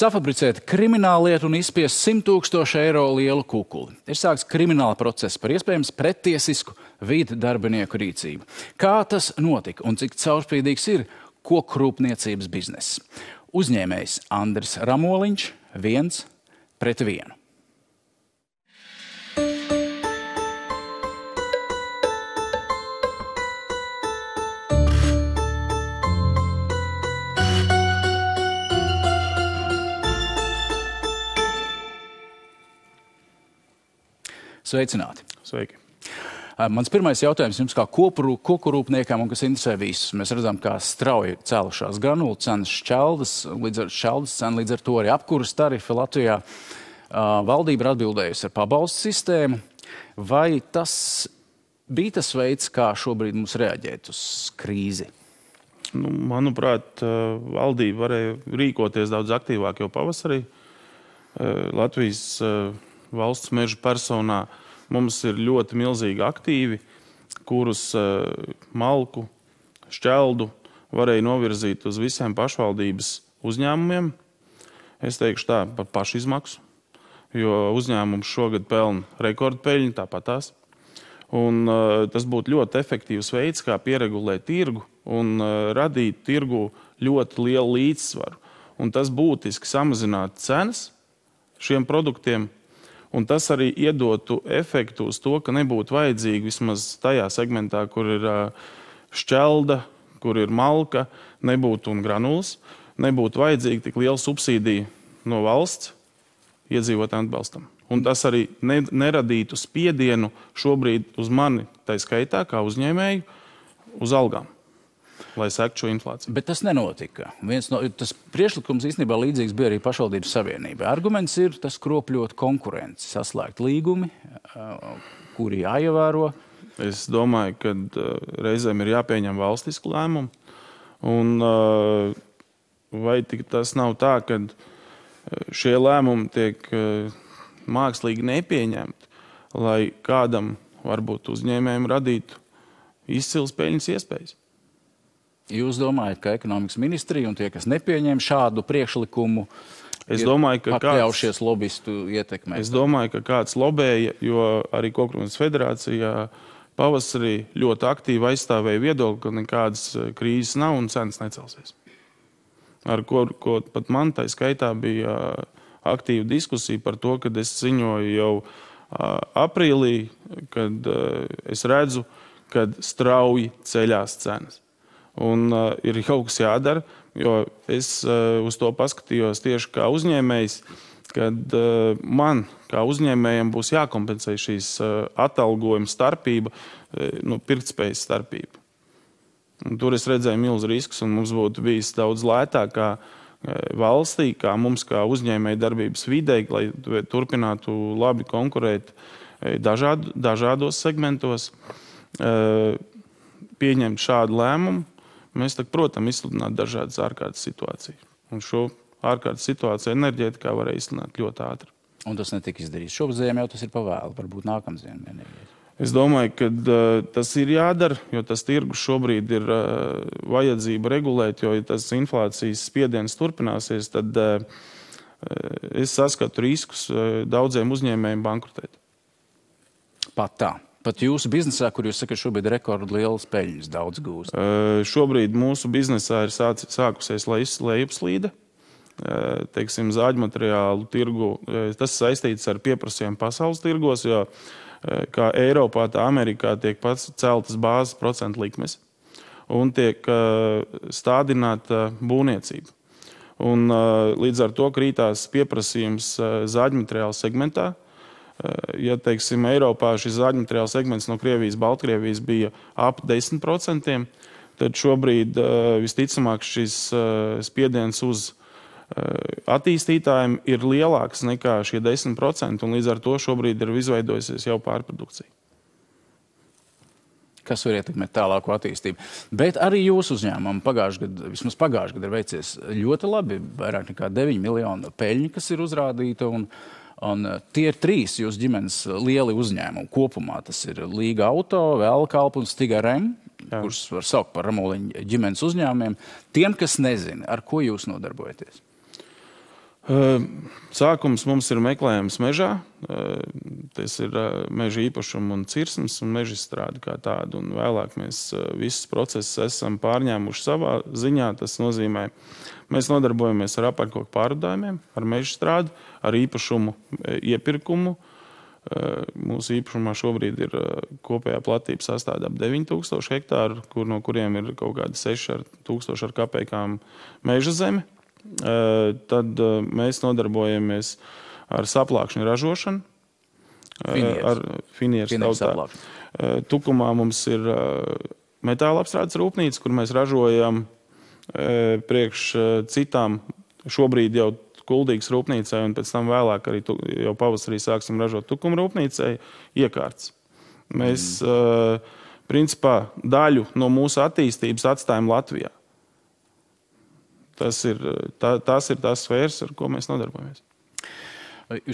Safabricēt krimināllietu un izspiest 100 000 eiro lielu kukuli. Ir sākts krimināla process par iespējams prettiesisku vidu darbinieku rīcību. Kā tas notika un cik caurspīdīgs ir kokrūpniecības bizness? Uzņēmējs Andris Ramoliņš 1-1. Sveicināti. Sveiki. Mans pirmais jautājums jums kā kokurūpniekam un kas interesē visus. Mēs redzam, kā strauji cēlušās granulu cenas, šķeldas cena, līdz ar to arī apkuras tarifi Latvijā. Valdība ir atbildējusi ar pabalstu sistēmu. Vai tas bija tas veids, kā šobrīd mums reaģēt uz krīzi? Manuprāt, valdība varēja rīkoties daudz aktīvāk jau pavasarī. Latvijas valsts meža personā mums ir ļoti milzīgi aktīvi, kurus malku, šķeldu varēja novirzīt uz visiem pašvaldības uzņēmumiem. Es teikšu tā par pašizmaksu, jo uzņēmums šogad pelna rekordpeļņu, tāpatās. Un tas būtu ļoti efektīvs veids, kā pieregulēt tirgu un radīt tirgu ļoti lielu līdzsvaru. Un tas būtiski samazinātu cenas šiem produktiem. Un tas arī iedotu efektu uz to, ka nebūtu vajadzīgi vismaz tajā segmentā, kur ir šķelda, kur ir malka, nebūtu un granulas, nebūtu vajadzīgi tik liela subsīdija no valsts iedzīvotājiem atbalstam. Un tas arī neradītu spiedienu šobrīd uz mani, tai skaitā, kā uzņēmēju, uz algām, lai sektu šo inflāciju. Bet tas nenotika. Tas priekšlikums īstenībā līdzīgs bija arī pašvaldības savienībai. Arguments ir tas kropļot konkurenci, saslēgt līgumi, kuri jāievēro. Es domāju, ka reizēm ir jāpieņem valstisku lēmumu. Un vai tas nav tā, ka šie lēmumi tiek mākslīgi nepieņemti, lai kādam, varbūt uzņēmējiem, radītu izcils peļņas iespējas? Jūs domājat, ka ekonomikas ministrija un tie, kas nepieņem šādu priekšlikumu, pakļaušies lobistu ietekmē? Es domāju, ka kāds lobēja, jo arī Kokrūpniecības federācijā pavasarī ļoti aktīvi aizstāvēja viedokli, ka nekādas krīzes nav un cenas necelsies. Ar ko pat man tai skaitā bija aktīva diskusija par to, kad es ziņoju jau aprīlī, kad es redzu, kad strauji ceļās cenas. Un ir kaut kas jādara, jo es uz to paskatījos tieši kā uzņēmējs, kad man kā uzņēmējiem būs jākompensē šīs atalgojuma starpība, pirktspējas starpība. Un tur es redzēju milzu riskus, un mums būtu bijis daudz lētāk kā valstī, kā mums kā uzņēmēja darbības videi, lai turpinātu labi konkurēt dažādos segmentos, pieņemt šādu lēmumu. Mēs, protams, izsludināt dažādas ārkārtas situācijas. Un šo ārkārtas situāciju enerģētikā varēja izsludināt ļoti ātri. Un tas netika izdarīts. Šobaziem jau tas ir pavēlu, varbūt nākamziem enerģētikā. Es domāju, ka tas ir jādara, jo tas tirgus šobrīd ir vajadzība regulēt, jo ja tas inflācijas spiediens turpināsies, tad es saskatu riskus daudziem uzņēmējiem bankrotēt. Pat tā. Pat jūsu biznesā, kur jūs sakat, šobrīd rekordlielas peļņas daudz gūst? Šobrīd mūsu biznesā ir sākusies lejupslīde. Teiksim, zāģmateriālu tirgu. Tas saistīts ar pieprasījumu pasaules tirgos, jo kā Eiropā, tā Amerikā tiek pats celtas bāzes procentu likmes un tiek stādināta būvniecība. Un līdz ar to krītās pieprasījums zāģmateriālu segmentā. Ja, teiksim, Eiropā šis zāģmateriāla segments no Krievijas, Baltkrievijas bija ap 10%, tad šobrīd visticamāk šis spiediens uz attīstītājiem ir lielāks nekā šie 10%, un līdz ar to šobrīd ir izveidojusies jau pārprodukcija. Kas var ietekmēt tālāku attīstību. Bet arī jūsu uzņēmumam vismaz pagājušajā gadā ir veicies ļoti labi, vairāk nekā 9 miljonu peļņu, kas ir uzrādīta, un tie ir 3 jūsu ģimenes lieli uzņēmumi kopumā. Tas ir Līga Auto, Velkalpa un Stiga Rem, kurus var saukt par Ramoliņa ģimenes uzņēmumiem. Tiem, kas nezina, ar ko jūs nodarbojaties? Sākums mums ir meklējums mežā. Tas ir meža īpašuma un cirsmas un meža izstrāde kā tāda. Un vēlāk mēs visus procesus esam pārņēmuši savā ziņā. Tas nozīmē, mēs nodarbojamies ar apakškoku pārvadājumiem, ar meža strādi, ar īpašumu iepirkumu. Mūsu īpašumā šobrīd ir kopējā platība sastāv ap 9000 hektāru, no kuriem ir kaut kādi 6000 ar kapekām meža zeme. Tad mēs nodarbojamies ar saplākšņu ražošanu. Ar finieres tautā. Tukumā mums ir metāla apstrādes rūpnīca, kur mēs ražojam priekš citām šobrīd jau Kuldīgas rūpnīcai, un pēc tam vēlāk arī jau pavasarī sāksim ražot Tukuma rūpnīcai iekārtas. Mēs principā daļu no mūsu attīstības atstājam Latvijā. Tas ir tās sfēras, ar ko mēs nodarbojamies.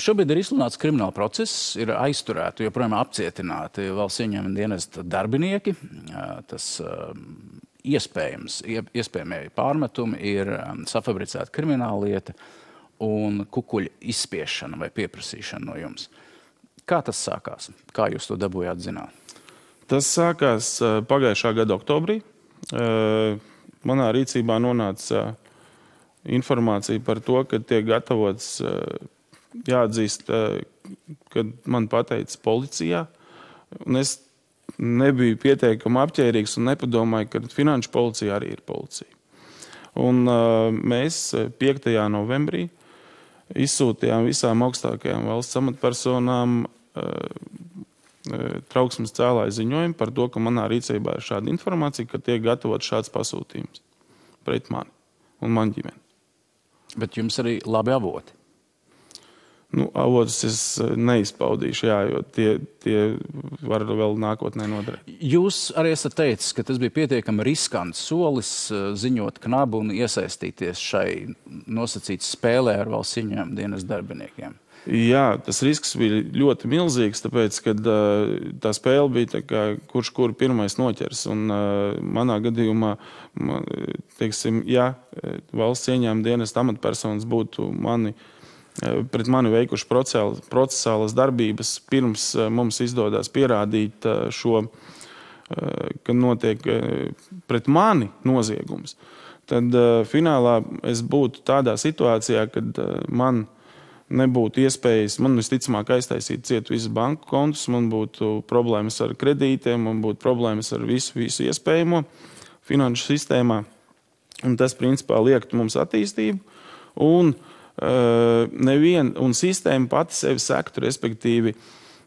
Šobrīd ir izsludināts krimināla process, ir aizturēti, joprojām apcietināti valsts ieņēmuma dienesta darbinieki. Tas iespējamie pārmetumi ir safabricēta krimināla lieta un kukuļa izspiešana vai pieprasīšana no jums. Kā tas sākās? Kā jūs to dabūjāt zināt? Tas sākās pagājušā gada oktobrī. Manā rīcībā nonāca informācija par to, ka tiek gatavots, jāatzīst, kad man pateica policijā. Un es nebiju pietiekami apķērīgs un nepadomāju, ka finanšu policija arī ir policija. Un mēs 5. novembrī izsūtījām visām augstākajām valsts amatpersonām trauksmes cēlāju ziņojumu par to, ka manā rīcībā ir šāda informācija, ka tiek gatavots šāds pasūtījums pret mani un man ģimeni. Bet jums arī labi avoti? Avotus es neizpaudīšu, jo tie var vēl nākotnē noderēt. Jūs arī esat teicis, ka tas bija pietiekami riskants solis ziņot knabu un iesaistīties šai nosacītas spēlē ar valsts ieņēmuma dienesta darbiniekiem. Jā, tas risks bija ļoti milzīgs, tāpēc, kad tā spēle bija kurš kuru pirmais noķers. Un manā gadījumā, teiksim, ja valsts ieņēmuma dienesta amatpersonas būtu pret mani veikuši procesālas darbības, pirms mums izdodas pierādīt šo, ka notiek pret mani noziegums, tad finālā es būtu tādā situācijā, kad man nebūtu iespējas, man visticamāk aiztaisīt ciet visus banku kontus, man būtu problēmas ar kredītiem, man būtu problēmas ar visu iespējamo finanšu sistēmā. Un tas, principā, liektu mums attīstību. Un sistēma pati sevi sektu, respektīvi,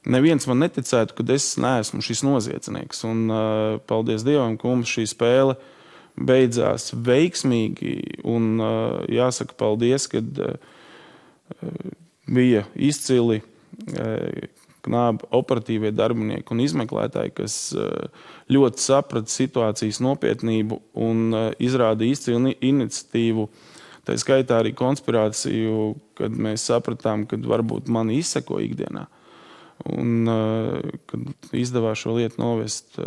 neviens man neticētu, ka es neesmu šis noziedznieks. Un paldies Dievam, ka mums šī spēle beidzās veiksmīgi. Un jāsaka paldies, kad bija izcili knāba operatīvie darbinieki un izmeklētāji, kas ļoti saprata situācijas nopietnību un izrāda izcilu iniciatīvu. Tā skaitā arī konspirāciju, kad mēs sapratām, kad varbūt mani izseko ikdienā. Un kad izdevās šo lietu novest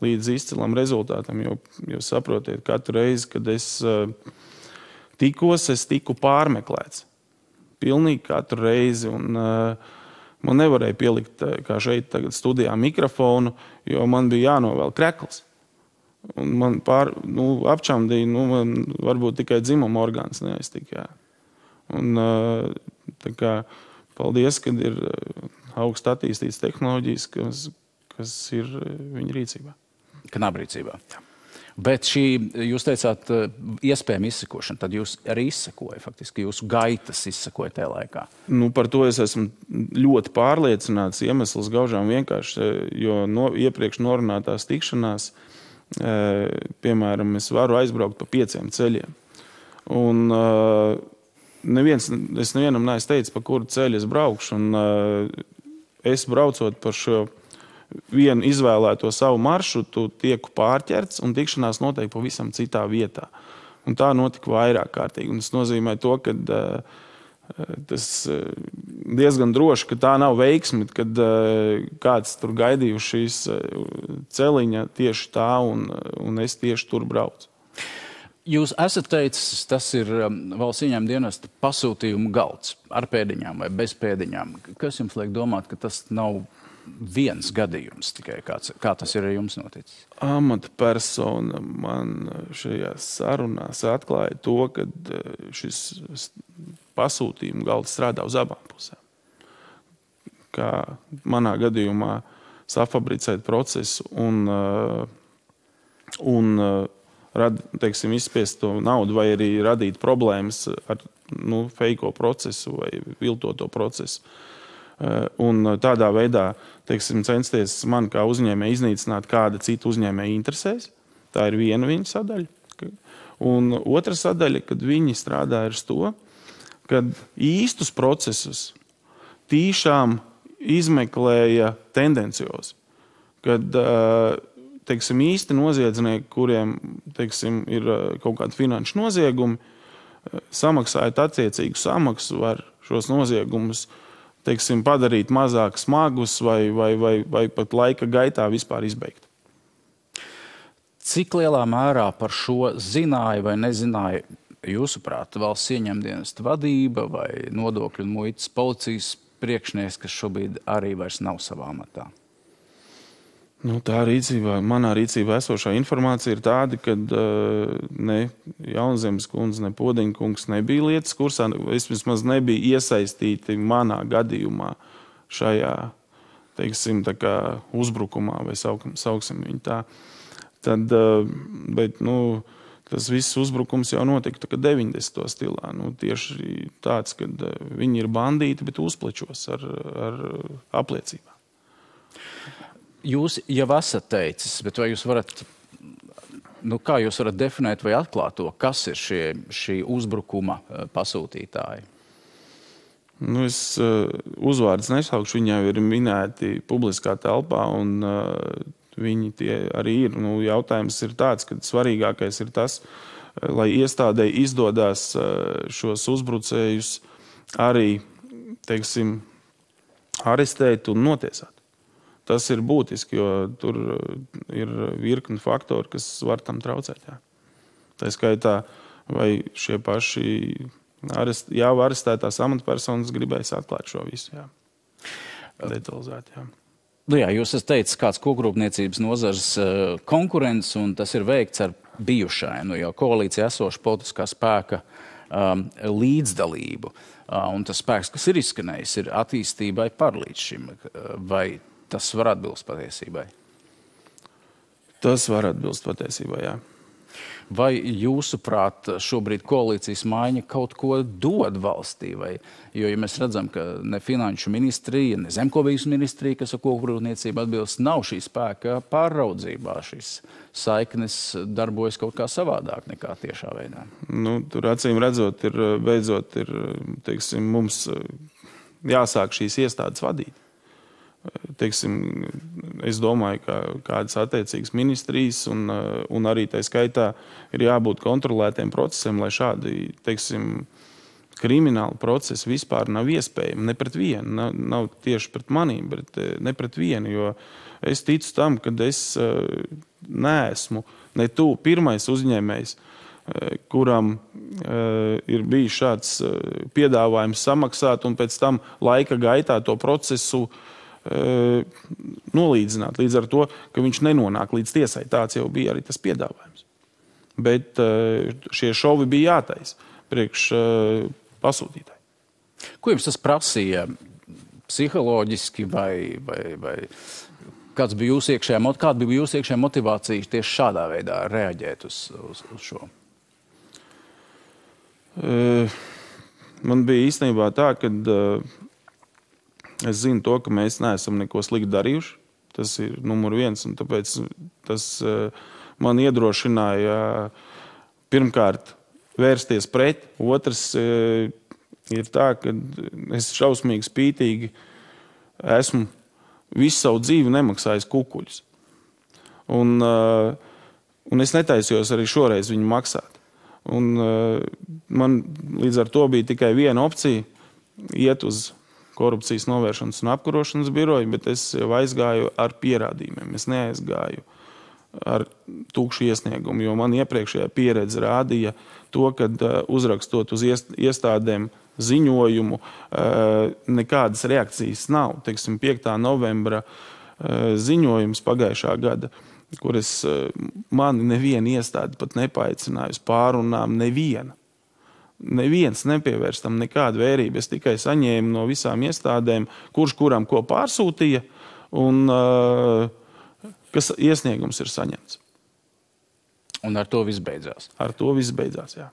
līdz izcilam rezultātam, jo saprotiet, katru reizi, kad es tiku pārmeklēts. Pilnīgi katru reizi. Un man nevarēja pielikt, kā šeit tagad studijā, mikrofonu, jo man bija jānovēl krekls. Un man apčamdīja, man varbūt tikai dzimuma orgāns neaiztika. Un paldies, kad ir augst attīstītas tehnoloģijas, kas ir viņa rīcībā. Knabrīcībā. Jā. Bet šī, jūs teicāt, iespējama izsekošana, tad jūs arī izsekoja, faktiski jūsu gaitas izsekoja tajā laikā. Par to es esmu ļoti pārliecināts, iemesls gaužām vienkārši, jo iepriekš norunātās tikšanās, piemēram, es varu aizbraukt pa 5 ceļiem. Un es nevienam neesmu teicis, pa kuru ceļu es braukšu, un es braucot par šo vienu izvēlēto savu maršrutu, tieku pārķerts un tikšanās notiek pavisam citā vietā. Un tā notika vairāk kārtīgi. Un tas nozīmē to, ka tas diezgan droši, ka tā nav veiksme, kad kāds tur gaidīju šīs celiņa tieši tā un es tieši tur braucu. Jūs esat teicis, tas ir valsts ieņēmuma dienesta pasūtījuma galds ar pēdiņām vai bez pēdiņām. Kas jums liek domāt, ka tas nav viens gadījums tikai, kā tas ir ar jums noticis? Amatpersona man šajās sarunās atklāja to, ka šis pasūtījuma galds strādā uz abām pusēm. Kā manā gadījumā safabricēt procesu un teiksim, izspiest to naudu vai arī radīt problēmas ar feiko procesu vai viltoto procesu. Un tādā veidā, teiksim, censties man kā uzņēmēji iznīcināt kāda cita uzņēmēja interesēs. Tā ir viena viņa sadaļa. Un otra sadaļa, kad viņi strādā ar to, kad īstus procesus tīšām izmeklēja tendenciozi. Kad teiksim, īsti noziedznieki, kuriem teiksim, ir kaut kādi finanšu noziegumi, samaksājot attiecīgu samaksu, var šos noziegumus teiksim, padarīt mazāk smagus vai pat laika gaitā vispār izbeigt. Cik lielā mērā par šo zināja vai nezināja, jūsuprāt, valsts ieņēmuma dienesta vadība vai nodokļu un muitas policijas priekšnieks, kas šobrīd arī vairs nav savā amatā? Manā rīcībā esošā informācija ir tāda, ka ne Jaunzemes kundze, ne Podeņa kungs nebija lietas kursā, vismaz nebija iesaistīti manā gadījumā šajā, teiksim, tā kā uzbrukumā, vai sauksim viņu tā. Tad, bet, tas viss uzbrukums jau notika 90. stilā. Tieši tāds, kad viņi ir bandīti, bet uzplečos ar apliecībām. Jūs jau esat teicis, bet vai jūs varat, kā jūs varat definēt vai atklāt to, kas ir šī uzbrukuma pasūtītāji? Es uzvārdus nesaukšu, viņi jau ir minēti publiskā telpā, un viņi tie arī ir. Jautājums ir tāds, ka svarīgākais ir tas, lai iestādei izdodās šos uzbrucējus arī, teiksim, arestēt un notiesāt. Tas ir būtiski, jo tur ir virkni faktori, kas var tam traucēt. Jā. Tā skaitā, vai šie paši jau arestētās amatpersonas gribēs atklāt šo visu. Jā. Detalizēt, jā. Jā, jūs esat teicis, kāds kokrūpniecības nozares konkurents, un tas ir veikts ar bijušai, jau koalīcija esoša politiskā spēka līdzdalību. Un tas spēks, kas ir izskanējis, ir attīstībai par līdz šim. Vai tas var atbilst patiesībai? Tas var atbilst patiesībai, jā. Vai jūsuprāt šobrīd koalīcijas maiņa kaut ko dod valstī? Jo, ja mēs redzam, ka ne finanšu ministrija, ne zemkopības ministrija, kas ar kokrūpniecību atbilst, nav šī spēka pāraudzībā. Šīs saiknes darbojas kaut kā savādāk nekā tiešā veidā. Tur acīm redzot, beidzot ir, teiksim, mums jāsāk šīs iestādes vadīt. Teiksim, es domāju, ka kādas attiecīgas ministrijas un arī tā skaitā ir jābūt kontrolētiem procesiem, lai šādi, teiksim, krimināli procesi vispār nav iespējami. Ne pret vienu, nav tieši pret manīm, bet ne pret vienu, jo es ticu tam, ka es neesmu ne tu pirmais uzņēmējs, kuram ir bijis šāds piedāvājums samaksāt un pēc tam laika gaitā to procesu nolīdzināt līdz ar to, ka viņš nenonāk līdz tiesai. Tāds jau bija arī tas piedāvājums. Bet šie šovi bija jātaisa priekš pasūtītāji. Ko jums tas prasīja psiholoģiski vai kāda bija jūsu iekšējā motivācija tieši šādā veidā reaģēt uz šo? Man bija īstenībā tā, ka es zinu to, ka mēs neesam neko slikti darījuši. Tas ir numur viens, un tāpēc tas man iedrošināja pirmkārt vērsties pret. Otrs ir tā, ka es šausmīgi spītīgi esmu visu savu dzīvi nemaksājis kukuļus. Un es netaisījos arī šoreiz viņu maksāt. Un man līdz ar to bija tikai viena opcija iet uz korupcijas novēršanas un apkarošanas biroju, bet es jau aizgāju ar pierādījumiem. Es neaizgāju ar tukšu iesniegumu, jo man iepriekšējā pieredze rādīja to, ka uzrakstot uz iestādēm ziņojumu, nekādas reakcijas nav. Teiksim, 5. novembra ziņojums pagājušā gada, kur mani neviena iestāde pat nepaaicināja uz pārunām, neviena. Neviens nepievērst tam nekādu vērību. Es tikai saņēmu no visām iestādēm, kurš kuram ko pārsūtīja, un kas iesniegums ir saņemts. Un ar to viss beidzās? Ar to viss beidzās, jā.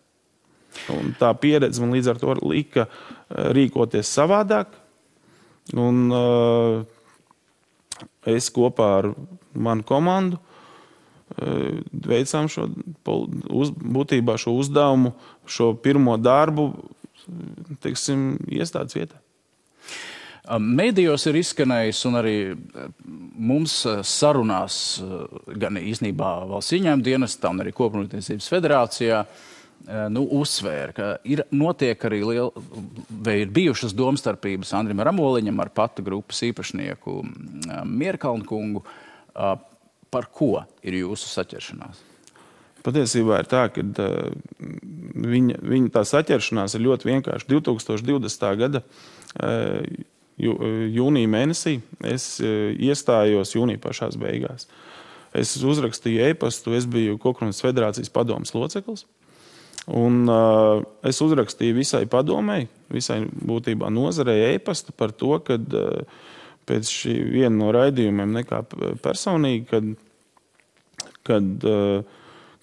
Un tā pieredze man līdz ar to lika rīkoties savādāk. Un es kopā ar manu komandu veicām būtībā šo uzdevumu, šo pirmo darbu, teiksim, iestādes vietā. Mēdījos ir izskanējis un arī mums sarunās gan īstenībā valsts ieņēmuma dienestā un arī Kopumrūpniecības federācijā uzsvēra, ka notiek arī vai ir bijušas domstarpības Andrim Ramoliņam ar pata grupas īpašnieku Mierkalnu kungu. Par ko ir jūsu saķeršanās? Patiesībā ir tā, ka viņa tā saķeršanās ir ļoti vienkārši. 2020. gada jūnija mēnesī es iestājos jūnija pašās beigās. Es uzrakstīju e-pastu, es biju Kopumrūpniecības federācijas padomes loceklis. Un es uzrakstīju visai padomei, visai būtībā nozarei e-pastu par to, ka pēc šī viena no raidījumiem nekā personīgi, kad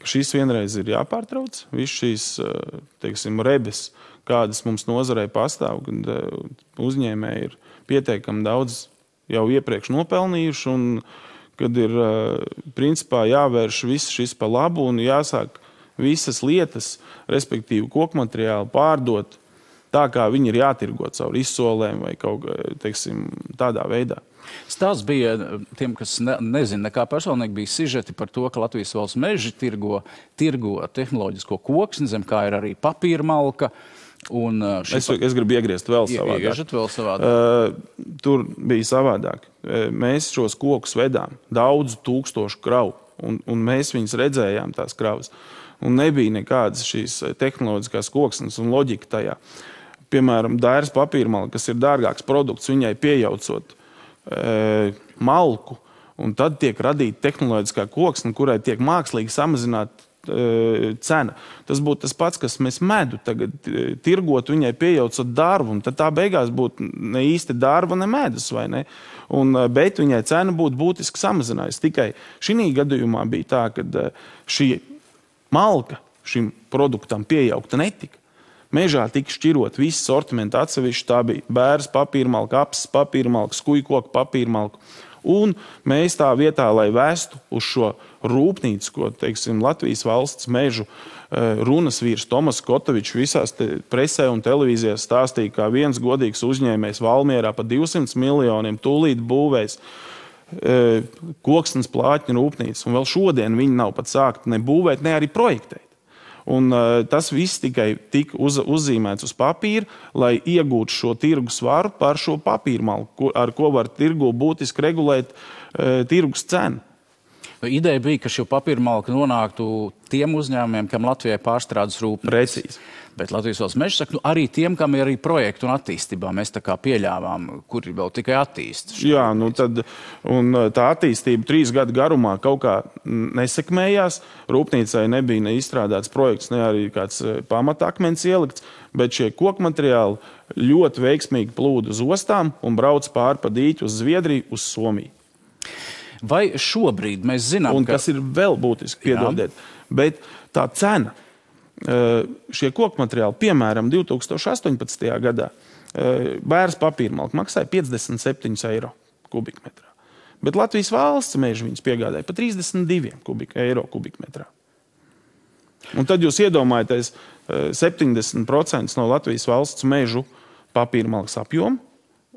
šis vienreiz ir jāpārtrauc. Viss šīs, teiksim, rebes, kādas mums nozarei pastāv, kad uzņēmēji ir pietiekami daudz jau iepriekš nopelnījuši un kad ir principā jāvērš viss šis pa labu un jāsāk visas lietas, respektīvi kokmateriāli pārdot tā, kā viņi ir jātirgo caur izsolēm vai kaut teiksim, tādā veidā. Stāsts bija tiem, kas nezina, nekā personīgi bija sižeti par to, ka Latvijas valsts meži tirgo tehnoloģisko koksni, zem kā ir arī papīra malka. Es gribu iegriezt vēl savādāk. Tur bija savādāk. Mēs šos kokus vedām daudzu tūkstošu kravu, un mēs viņus redzējām tās kravas. Un nebija nekādas šīs tehnoloģiskās koksnes un loģika tajā. Piemēram, dairas papīrmalka, kas ir dārgāks produkts, viņai pieejaucot malku, un tad tiek radīta tehnoloģiskā koksne, kurai tiek mākslīgi samazināta cena. Tas būtu tas pats, kas mēs medu tagad tirgot, viņai pieejaucot darbu, un tad tā beigās būtu ne īsti darba, ne medus, vai ne? Bet viņai cena būtu būtiski samazinājusi. Tikai šī gadījumā bija tā, ka šī malka šim produktam piejaukta netika. Mežā tika šķirot visu sortimentu atsevišķi. Tā bija bēres papīrmalka, apses papīrmalka, skujkoka papīrmalka. Un mēs tā vietā, lai vestu uz šo rūpnīcu, ko, teiksim, Latvijas valsts mežu runas vīrs Tomas Kotovičs visās presē un televīzijās stāstīja, kā viens godīgs uzņēmējs Valmierā pa 200 miljoniem tūlīt būvēs koksnes plātņu rūpnīcu. Un vēl šodien viņi nav pat sākt ne būvēt, ne arī projektēt. Un tas viss tikai tika uzzīmēts uz papīra, lai iegūtu šo tirgus svaru par šo papīrmalku, ar ko var tirgu būtiski regulēt tirgus cenu. Ideja bija, ka šo papīrmalku nonāktu tiem uzņēmumiem, kam Latvijai pārstrādes rūpnīcas. Precīzi. Bet Latvijas valsts meži saka, arī tiem, kam ir arī projektu un attīstībā, mēs tā kā pieļāvām, kuri vēl tikai attīst. Jā, tā attīstība 3 gadu garumā kaut kā nesekmējās. Rūpnīcai nebija ne izstrādāts projekts, ne arī kāds pamatakmens ielikts, bet šie kokmateriāli ļoti veiksmīgi plūda uz ostām un brauc pāri pa dīķi uz Zviedriju, uz Somiju. Vai šobrīd mēs zinām, un kas ir vēl būtiski, piedodiet, bet tā cena, šie kokmateriāli, piemēram, 2018. gadā bēres papīrmalka maksāja 57 eiro kubikmetrā. Bet Latvijas valsts meži viņus piegādāja pa 32 eiro kubikmetrā. Un tad jūs iedomājaties 70% no Latvijas valsts mežu papīrmalkas apjomu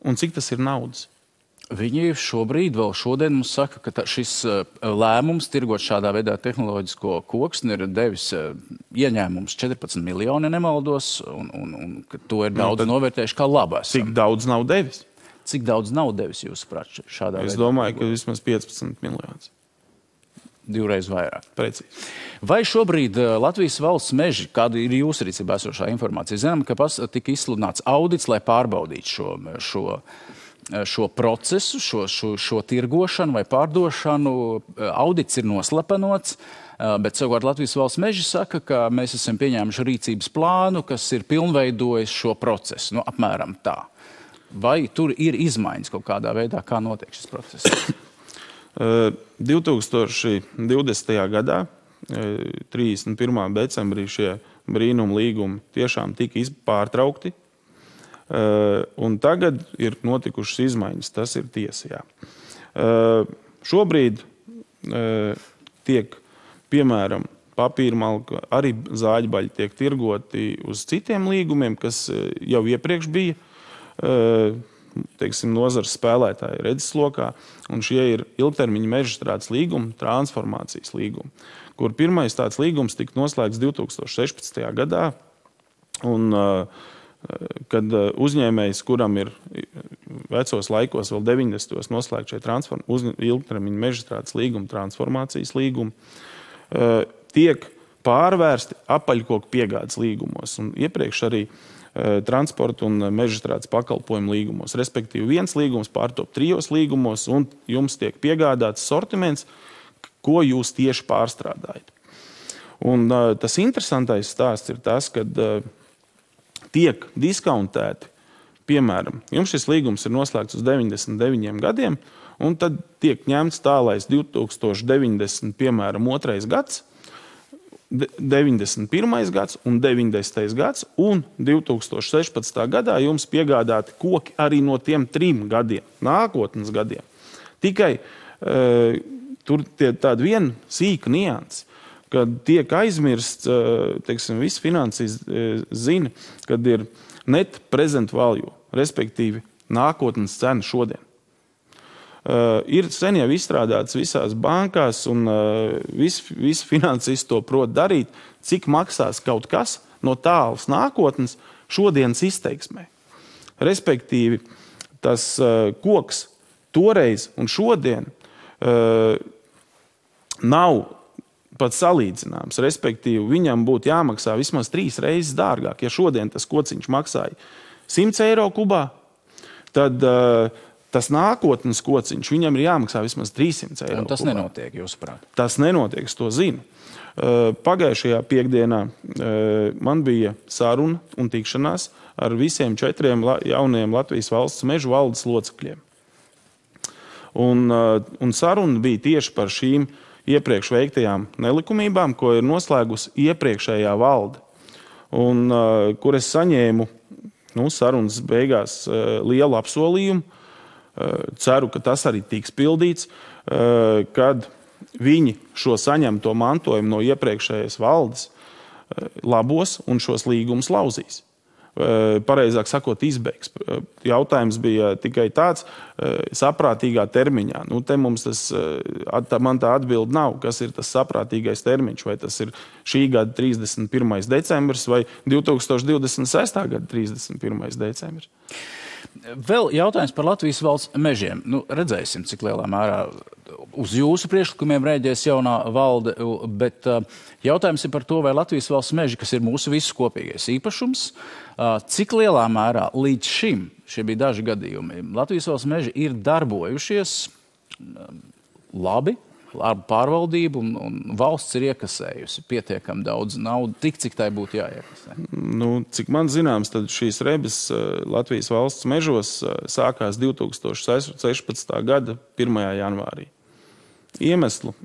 un cik tas ir naudas. Viņi šobrīd, vēl šodien mums saka, ka šis lēmums tirgot šādā veidā tehnoloģisko koksni ir devis ieņēmums 14 miljoni, nemaldos, un ka to ir daudz novērtējuši kā labu. Cik daudz nav devis? Cik daudz nav devis, jūsuprāt, šādā veidā? Es domāju, ka vismaz 15 miljonus. 2 vairāk. Precīzi. Vai šobrīd Latvijas valsts meži, kāda ir jūsu rīcībā esošā informācija? Zinām, ka tika izsludināts audits, lai pārbaudītu šo procesu, šo tirgošanu vai pārdošanu. Audits ir noslepenots, bet savukārt Latvijas valsts meži saka, ka mēs esam pieņēmuši rīcības plānu, kas ir pilnveidojis šo procesu. Apmēram tā. Vai tur ir izmaiņas kaut kādā veidā, kā notiek šis process? 2020. gadā, 31. decembrī, šie brīnuma līgumi tiešām tika pārtraukti, un tagad ir notikušas izmaiņas. Tas ir tiesa, jā. Šobrīd tiek, piemēram, papīrmalka, arī zāģbaļi tiek tirgoti uz citiem līgumiem, kas jau iepriekš bija, teiksim, nozares spēlētāji redzeslokā, un šie ir ilgtermiņa mežstrādes līgumi, transformācijas līgumi, kur pirmais tāds līgums tika noslēgts 2016. gadā, un kad uzņēmējs, kuram ir vecos laikos, vēl 90. noslēgt šie ilgtermiņa mežstrādes līgumi, transformācijas līgumi, tiek pārvērsti apaļkoku piegādes līgumos, un iepriekš arī transporta un mežstrādes pakalpojumu līgumos. Respektīvi, viens līgums pārtop 3 līgumos, un jums tiek piegādāts sortiments, ko jūs tieši pārstrādājat. Un tas interesantais stāsts ir tas, kad tiek diskontēti, piemēram, jums šis līgums ir noslēgts uz 99 gadiem, un tad tiek ņemts tālais 2090, piemēram, 2. gads, 91. gads un 90. gads, un 2016. gadā jums piegādāti koki arī no tiem 3 gadiem, nākotnes gadiem. Tikai tur tāda viena sīka nianse, kad tiek aizmirsts, teiksim, visi finanses zina, kad ir net present value, respektīvi nākotnes cena šodien. Ir sen jau izstrādāts visās bankās, un visi finansisti to prot darīt, cik maksās kaut kas no tālas nākotnes šodienas izteiksmē. Respektīvi, tas koks toreiz un šodien nav pat salīdzināms. Respektīvi, viņam būtu jāmaksā vismaz 3 reizes dārgāk. Ja šodien tas kociņš maksāja 100 eiro kubā, tad tas nākotnes kociņš, viņam ir jāmaksā vismaz 300 eiro. Un tas kubā nenotiek, jūsuprāt? Tas nenotiek, es to zinu. Pagājušajā piekdienā man bija saruna un tikšanās ar visiem 4 jaunajiem Latvijas valsts mežu valdes locekļiem. Un saruna bija tieši par šīm iepriekš veiktajām nelikumībām, ko ir noslēgusi iepriekšējā valde. Un kur es saņēmu sarunas beigās lielu apsolījumu, ceru, ka tas arī tiks pildīts, kad viņi šo saņemto mantojumu no iepriekšējās valdes labos un šos līgumus lauzīs. Pareizāk sakot, izbeigs. Jautājums bija tikai tāds saprātīgā termiņā. Te mums man tā atbilde nav, kas ir tas saprātīgais termiņš, vai tas ir šī gada 31. decembris vai 2026. gada 31. decembris. Vēl jautājums par Latvijas valsts mežiem. Redzēsim, cik lielā mērā uz jūsu priekšlikumiem rēģēs jaunā valde, bet jautājums ir par to, vai Latvijas valsts meži, kas ir mūsu visu kopīgais īpašums, cik lielā mērā līdz šim, šie bija daži gadījumi, Latvijas valsts meži ir darbojušies labi, ar pārvaldību, un valsts ir iekasējusi pietiekami daudz naudu, cik tai būtu jāiekasē. Cik man zināms, tad šīs rebes Latvijas valsts mežos sākās 2016. gada 1. janvārī. Iemeslu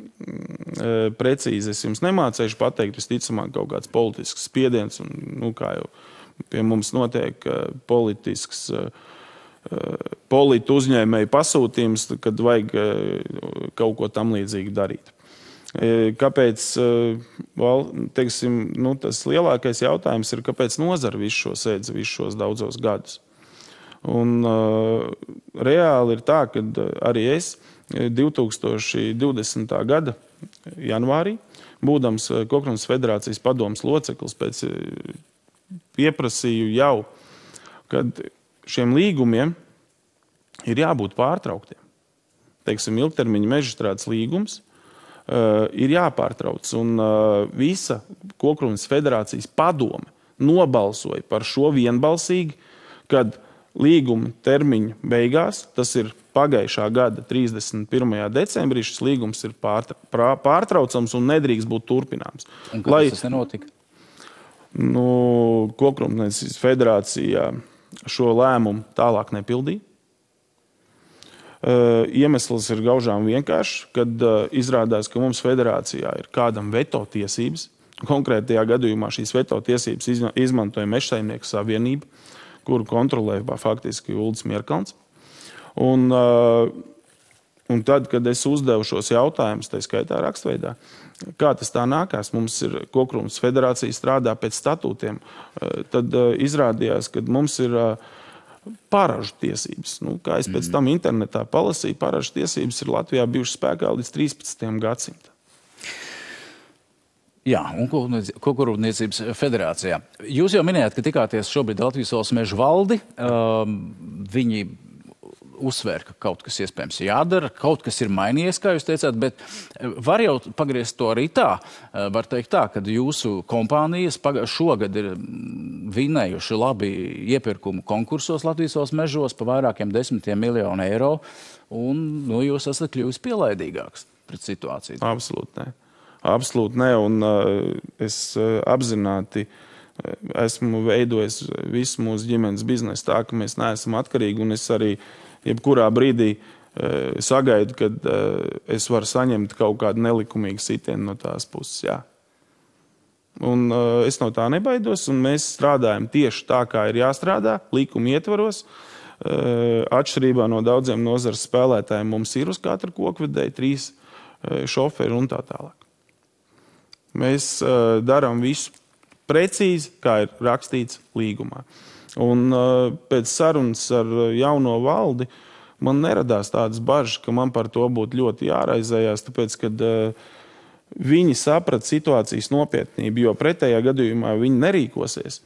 precīzi es jums nemācēšu pateikt, visticamāk kaut kāds politisks spiediens, un kā jau pie mums notiek politisks politu uzņēmēju pasūtījums, kad vajag kaut ko tam līdzīgi darīt. Kāpēc, teiksim, tas lielākais jautājums ir, kāpēc nozara visu šo sēdz, visu šos daudzos gadus. Un reāli ir tā, ka arī es 2020. gada janvārī, būdams Kokrunas federācijas padomes loceklis, pēc pieprasīju jau, kad šiem līgumiem ir jābūt pārtrauktiem. Teiksim, ilgtermiņa mežstrādes līgums ir jāpārtrauc. Un visa Kokrūpniecības federācijas padome nobalsoja par šo vienbalsīgi, kad līguma termiņa beigās, tas ir pagājušā gada 31. decembrī, šis līgums ir pārtraucams un nedrīkst būt turpināms. Un kāpēc tas nenotika? Kokrūpniecības federācija šo lēmumu tālāk nepildīja. Iemesls ir gaužām vienkārši, kad izrādās, ka mums federācijā ir kādam veto tiesības. Konkrētajā gadījumā šīs veto tiesības izmantoja Mežsaimnieku savienība, kuru kontrolē faktiski Uldis Mierkalns. Un tad, kad es uzdevu šos jautājumus, tā skaitā rakstveidā, kā tas tā nākās, mums ir Kokrūpniecības federācija strādā pēc statūtiem, tad izrādījās, ka mums ir paražu tiesības. Kā es pēc tam internetā palasīju, paražu tiesības ir Latvijā bijušas spēkā līdz 13. gadsimtam. Jā, un Kokrūpniecības federācijā. Jūs jau minējāt, ka tikāties šobrīd Latvijas valsts mežu valdi. Viņi uzsvēr, ka kaut kas iespējams jādara, kaut kas ir mainījies, kā jūs teicāt, bet var jau pagriezt to arī tā. Var teikt tā, ka jūsu kompānijas šogad ir vinējuši labi iepirkumu konkursos Latvijas valsts mežos pa vairākiem 10 miljonu eiro, un jūs esat kļuvis pielaidīgāks pret situāciju. Absolūti ne. Absolūti ne, un es apzināti esmu veidojis visu mūsu ģimenes biznesu tā, ka mēs neesam atkarīgi, un es arī jebkurā brīdī sagaidu, kad es varu saņemt kaut kādu nelikumīgu sitienu no tās puses. Jā. Un es no tā nebaidos, un mēs strādājam tieši tā, kā ir jāstrādā, likuma ietvaros. Atšķirībā no daudziem nozares spēlētājiem mums ir uz katru kokvedēju 3 šoferi un tā tālāk. Mēs darām visu precīzi, kā ir rakstīts līgumā. Un pēc sarunas ar jauno valdi man neradās tādas bažas, ka man par to būtu ļoti jāraizējās, tāpēc, kad viņi saprata situācijas nopietnību, jo pretējā gadījumā viņi nerīkosies.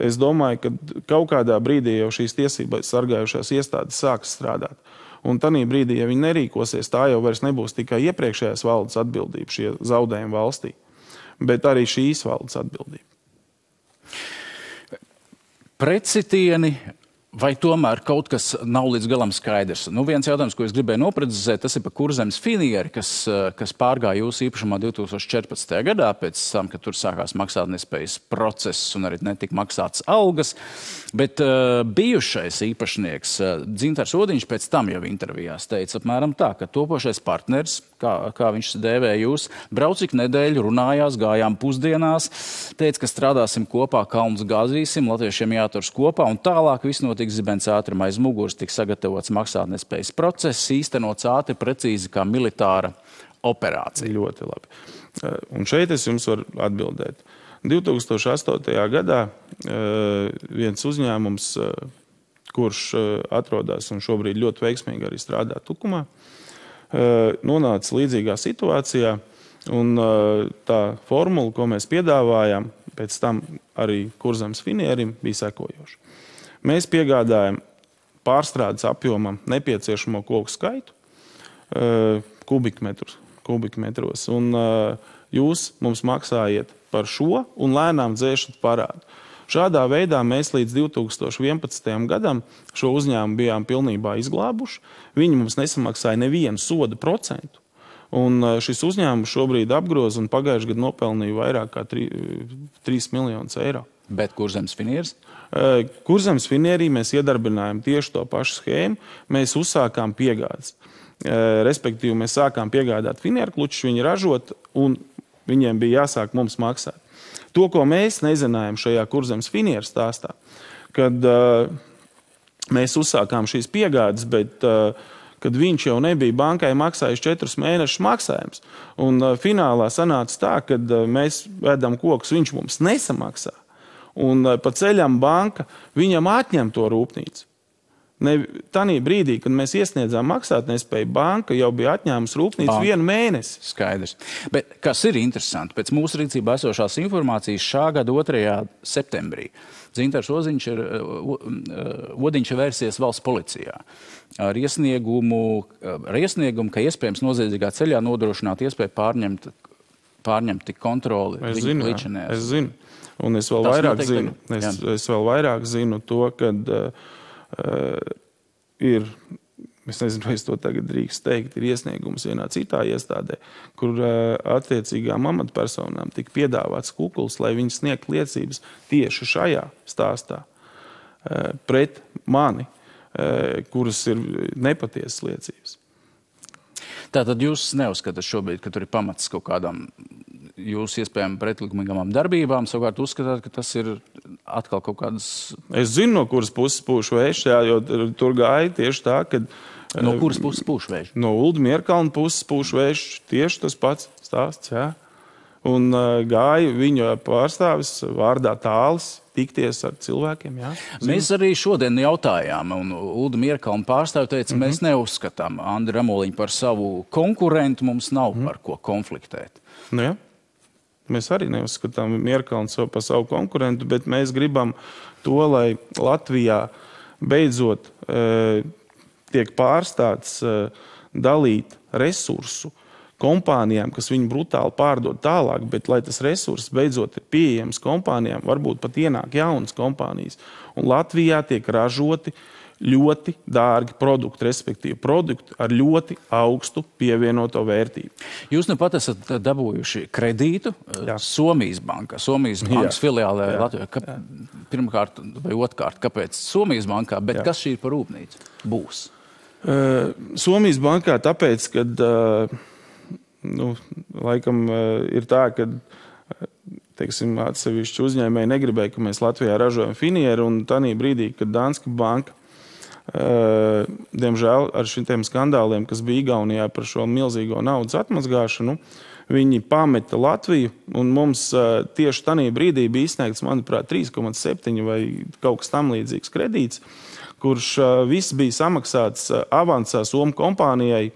Es domāju, ka kaut kādā brīdī jau šīs tiesības sargājušās iestādes sāks strādāt. Un tanī brīdī, ja viņi nerīkosies, tā jau vairs nebūs tikai iepriekšējās valdes atbildība, šie zaudējumi valstī, bet arī šīs valdes atbildība. Pretsitieni, vai tomēr kaut kas nav līdz galam skaidrs? Viens jautājums, ko es gribēju noprecizēt, tas ir par Kurzemes finieri, kas pārgāja jūsu īpašumā 2014. gadā, pēc tam, kad tur sākās maksātnespējas process un arī netika maksātas algas. Bet bijušais īpašnieks Dzintars Odiņš pēc tam jau intervijās teica apmēram tā, ka topošais partners, kā viņš dēvē jūs, brauc ik nedēļu, runājās, gājām pusdienās, teica, ka strādāsim kopā, kalnus gāzīsim, latviešiem jāturas kopā, un tālāk viss notiks zibens ātrim aiz muguras, tiks sagatavots maksātnespējas process, īstenots ātri, precīzi kā militāra operācija. Ļoti labi. Un šeit es jums varu atbildēt. 2008. gadā viens uzņēmums, kurš atrodas un šobrīd ļoti veiksmīgi arī strādā Tukumā, nonāca līdzīgā situācijā, un tā formula, ko mēs piedāvājām, pēc tam arī Kurzemes finierim, bija sekojoša. Mēs piegādājam pārstrādes apjomam nepieciešamo koku skaitu kubikmetros, un jūs mums maksājiet par šo un lēnām dzēšat parādu. Šādā veidā mēs līdz 2011. gadam šo uzņēmumu bijām pilnībā izglābuši. Viņi mums nesamaksāja nevienu soda procentu. Un šis uzņēmums šobrīd apgroz un pagājušajā gadā nopelnīja vairāk kā 3 miljonus eiro. Bet Kurzemes finieris? Kurzemes finierī mēs iedarbinājām tieši to pašu schēmu. Mēs uzsākām piegādes. Respektīvi, mēs sākām piegādāt finieru klučus, viņi ražot, un viņiem bija jāsāk mums maksāt. To, ko mēs nezinājām šajā Kurzemes finieru stāstā, kad mēs uzsākām šīs piegādes, bet kad viņš jau nebija bankai maksājis 4 mēnešus maksājums. Un finālā sanāca tā, kad mēs vedam kokus, viņš mums nesamaksā. Un pa ceļam banka viņam atņem to rūpnīcu. Tanī brīdī, kad mēs iesniedzām maksātnespēju, banka jau bija atņēmusi rūpnīcu 1 mēnesi. Skaidrs. Bet kas ir interesanti, pēc mūsu rīcībā esošās informācijas šā gada 2. septembrī Dzintars Odiņš ir vērsies valsts policijā ar iesniegumu, ka iespējams noziedzīgā ceļā nodrošināt iespēju pārņemt kontroli. Es zinu. Un es vēl vairāk zinu. Es vēl vairāk zinu to, kad ir, es nezinu, vai es to tagad drīkst teikt, ir iesniegums vienā citā iestādē, kur attiecīgām amatpersonām tika piedāvāts kukuls, lai viņi sniegt liecības tieši šajā stāstā pret mani, kuras ir nepatiesas liecības. Tātad jūs neuzskatāt šobrīd, ka tur ir pamats kaut kādām jūsu iespējām pretlikumīgām darbībām, savukārt uzskatāt, ka tas ir atkal kaut kādas... Es zinu, no kuras puses pūš vējš, jo tur gāja tieši tā, ka... No kuras puses pūš vējš? No Ulda Mierkalna puses pūš vējš, tieši tas pats stāsts, jā. Un gāja viņa pārstāvis vārdā Tālis tikties ar cilvēkiem, jā. Mēs arī šodien jautājām, un Ulda Mierkalna pārstāvi teica, mēs neuzskatām Andri Ramoliņu par savu konkurentu, mums nav par ko konfliktēt. Nu jā. Mēs arī neuzskatām Mierkalnu par savu konkurentu, bet mēs gribam to, lai Latvijā beidzot tiek pārstāts dalīt resursu kompānijām, kas viņu brutāli pārdod tālāk, bet lai tas resurss beidzot ir pieejams kompānijām, varbūt pat ienāk jaunas kompānijas. Un Latvijā tiek ražoti ļoti dārgi produkti, respektīvi produkti ar ļoti augstu pievienoto vērtību. Jūs nu pat esat dabūjuši kredītu Somijas bankā, Somijas bankas filiālē Latvijā. Pirmkārt vai otrkārt, kāpēc Somijas bankā, bet kas šī ir par rūpnīcu? Būs? Somijas bankā tāpēc, kad laikam ir tā, ka teiksim, atsevišķi uzņēmēji negribēja, ka mēs Latvijā ražojam finieru, un tanī brīdī, kad Danske banka diemžēl ar šitiem skandāliem, kas bija Igaunijā par šo milzīgo naudas atmazgāšanu, viņi pameta Latviju, un mums tieši tanī brīdī bija izsniegts, manuprāt, 3,7 vai kaut kas tam līdzīgs kredīts, kurš viss bija samaksāts avansā Somu kompānijai,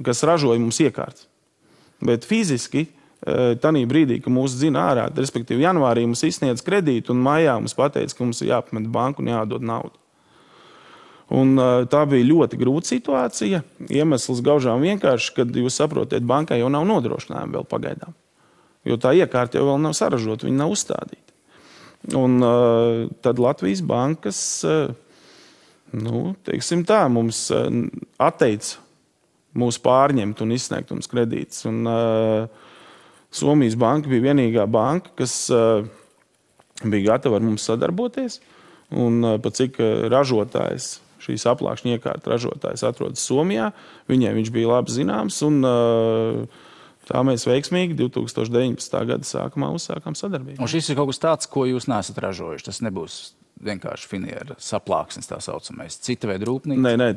kas ražoja mums iekārtas. Bet fiziski tanī brīdī, ka mūs dzina ārā, respektīvi janvārī mums izsniedz kredītu un maijā mums pateica, ka mums ir jāapmet banku un jādod naudu. Un tā bija ļoti grūta situācija. Iemesls gaužām vienkārši, kad jūs saprotiet, bankai jau nav nodrošinājumi vēl pagaidām. Jo tā iekārta jau vēl nav saražota, viņa nav uzstādīta. Un tad Latvijas bankas, teiksim tā, mums atteica mūs pārņemt un izsniegt mums kredītus. Un Somijas banka bija vienīgā banka, kas bija gatava ar mums sadarboties. Un pat cik ražotājs, šīs aplākšņa iekārta ražotājs atrodas Somijā, viņiem viņš bija labi zināms. Un tā mēs veiksmīgi 2019. Gada sākumā uzsākām sadarbību. Un šis ir kaut kas tāds, ko jūs neesat ražojuši. Tas nebūs vienkārši finiera saplāksnes tā saucamais. Cita veida rūpnīca? Nē,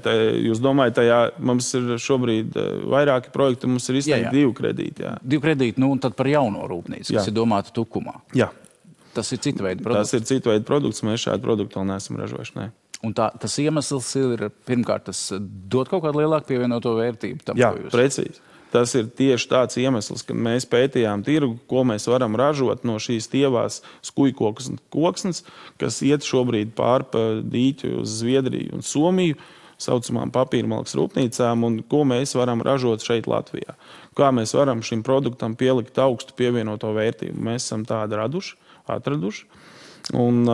jūs domājat, tajā mums ir šobrīd vairāki projekti, mums ir izsniegti 2 kredīti. Jā. 2 kredīti, un tad par jauno rūpnīcu, kas ir domāta Tukumā. Jā. Tas ir cita veida produkts? Tas ir cita veida produkts, mēs šādu produktu vēl neesam ražojuši, nē. Un tas iemesls ir, pirmkārt, tas dod kaut kādu lielāku pievienoto vērtību tam, Jā, precīzi. Tas ir tieši tāds iemesls, kad mēs pētījām tirgu, ko mēs varam ražot no šīs tievās skujkokas un koksnes, kas iet šobrīd pār pa dīķu uz Zviedriju un Somiju, saucamām papīrmalkas rūpnīcām, un ko mēs varam ražot šeit Latvijā. Kā mēs varam šim produktam pielikt augstu pievienoto vērtību. Mēs esam tādu atraduši. Un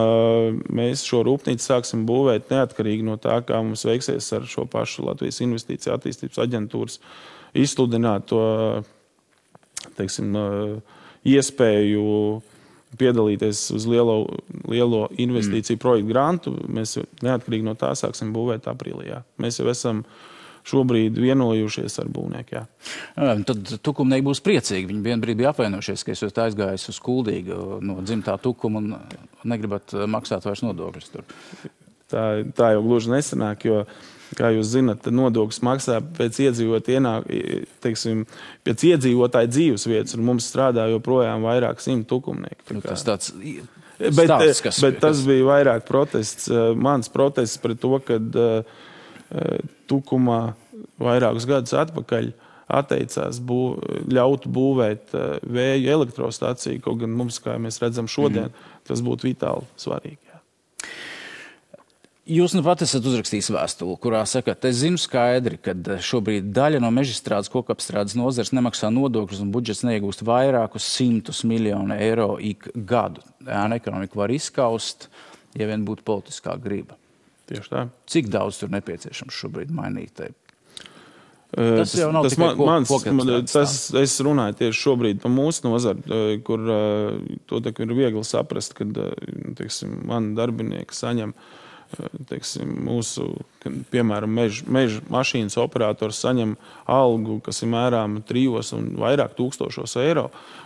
mēs šo rūpnīcu sāksim būvēt neatkarīgi no tā, kā mums veiksies ar šo pašu Latvijas Investīcija attīstības aģentūras izsludināt to, teiksim, iespēju piedalīties uz lielo investīciju projektu grantu. Mēs neatkarīgi no tā sāksim būvēt aprīlī. Jā. Mēs jau esam šobrīd vienojušies ar būvnieku. Tad tukumnieki būs priecīgi. Viņi vienbrīd bija apvainojušies, ka esat aizgājis uz Kuldīgu no dzimtā Tukuma un negribat maksāt vairs nodokļus tur. Tā jau gluži nesanāk, jo, kā jūs zinat, nodokļus maksā pēc iedzīvotāja dzīves vietas, un mums strādā joprojām vairāk 100 tukumnieki. Tas tāds Bet tas bija vairāk protests. Mans protests pret to, kad Tukumā vairākus gadus atpakaļ atteicās ļaut būvēt vēju elektrostaciju, kaut gan mums, kā mēs redzam šodien, tas būtu vitāli svarīgi. Jūs nu pat esat uzrakstījis vēstuli, kurā sakat, es zinu skaidri, ka šobrīd daļa no mežstrādes kokapstrādes nozares nemaksā nodokļus un budžets neiegūst vairākus 100 miljonu eiro ik gadu. Ēna ekonomika var izskaust, ja vien būtu politiskā griba. Tieši tā. Cik daudz tur nepieciešams šobrīd mainīt? Tas jau nav tikai kokapstrādes. Es runāju tieši šobrīd par mūsu nozari, kur to ir viegli saprast, kad, teiksim, mani darbinieki saņem mūsu, piemēram, meža mašīnas operators saņem algu, kas ir mērāma 3 un vairāk tūkstošos eiro,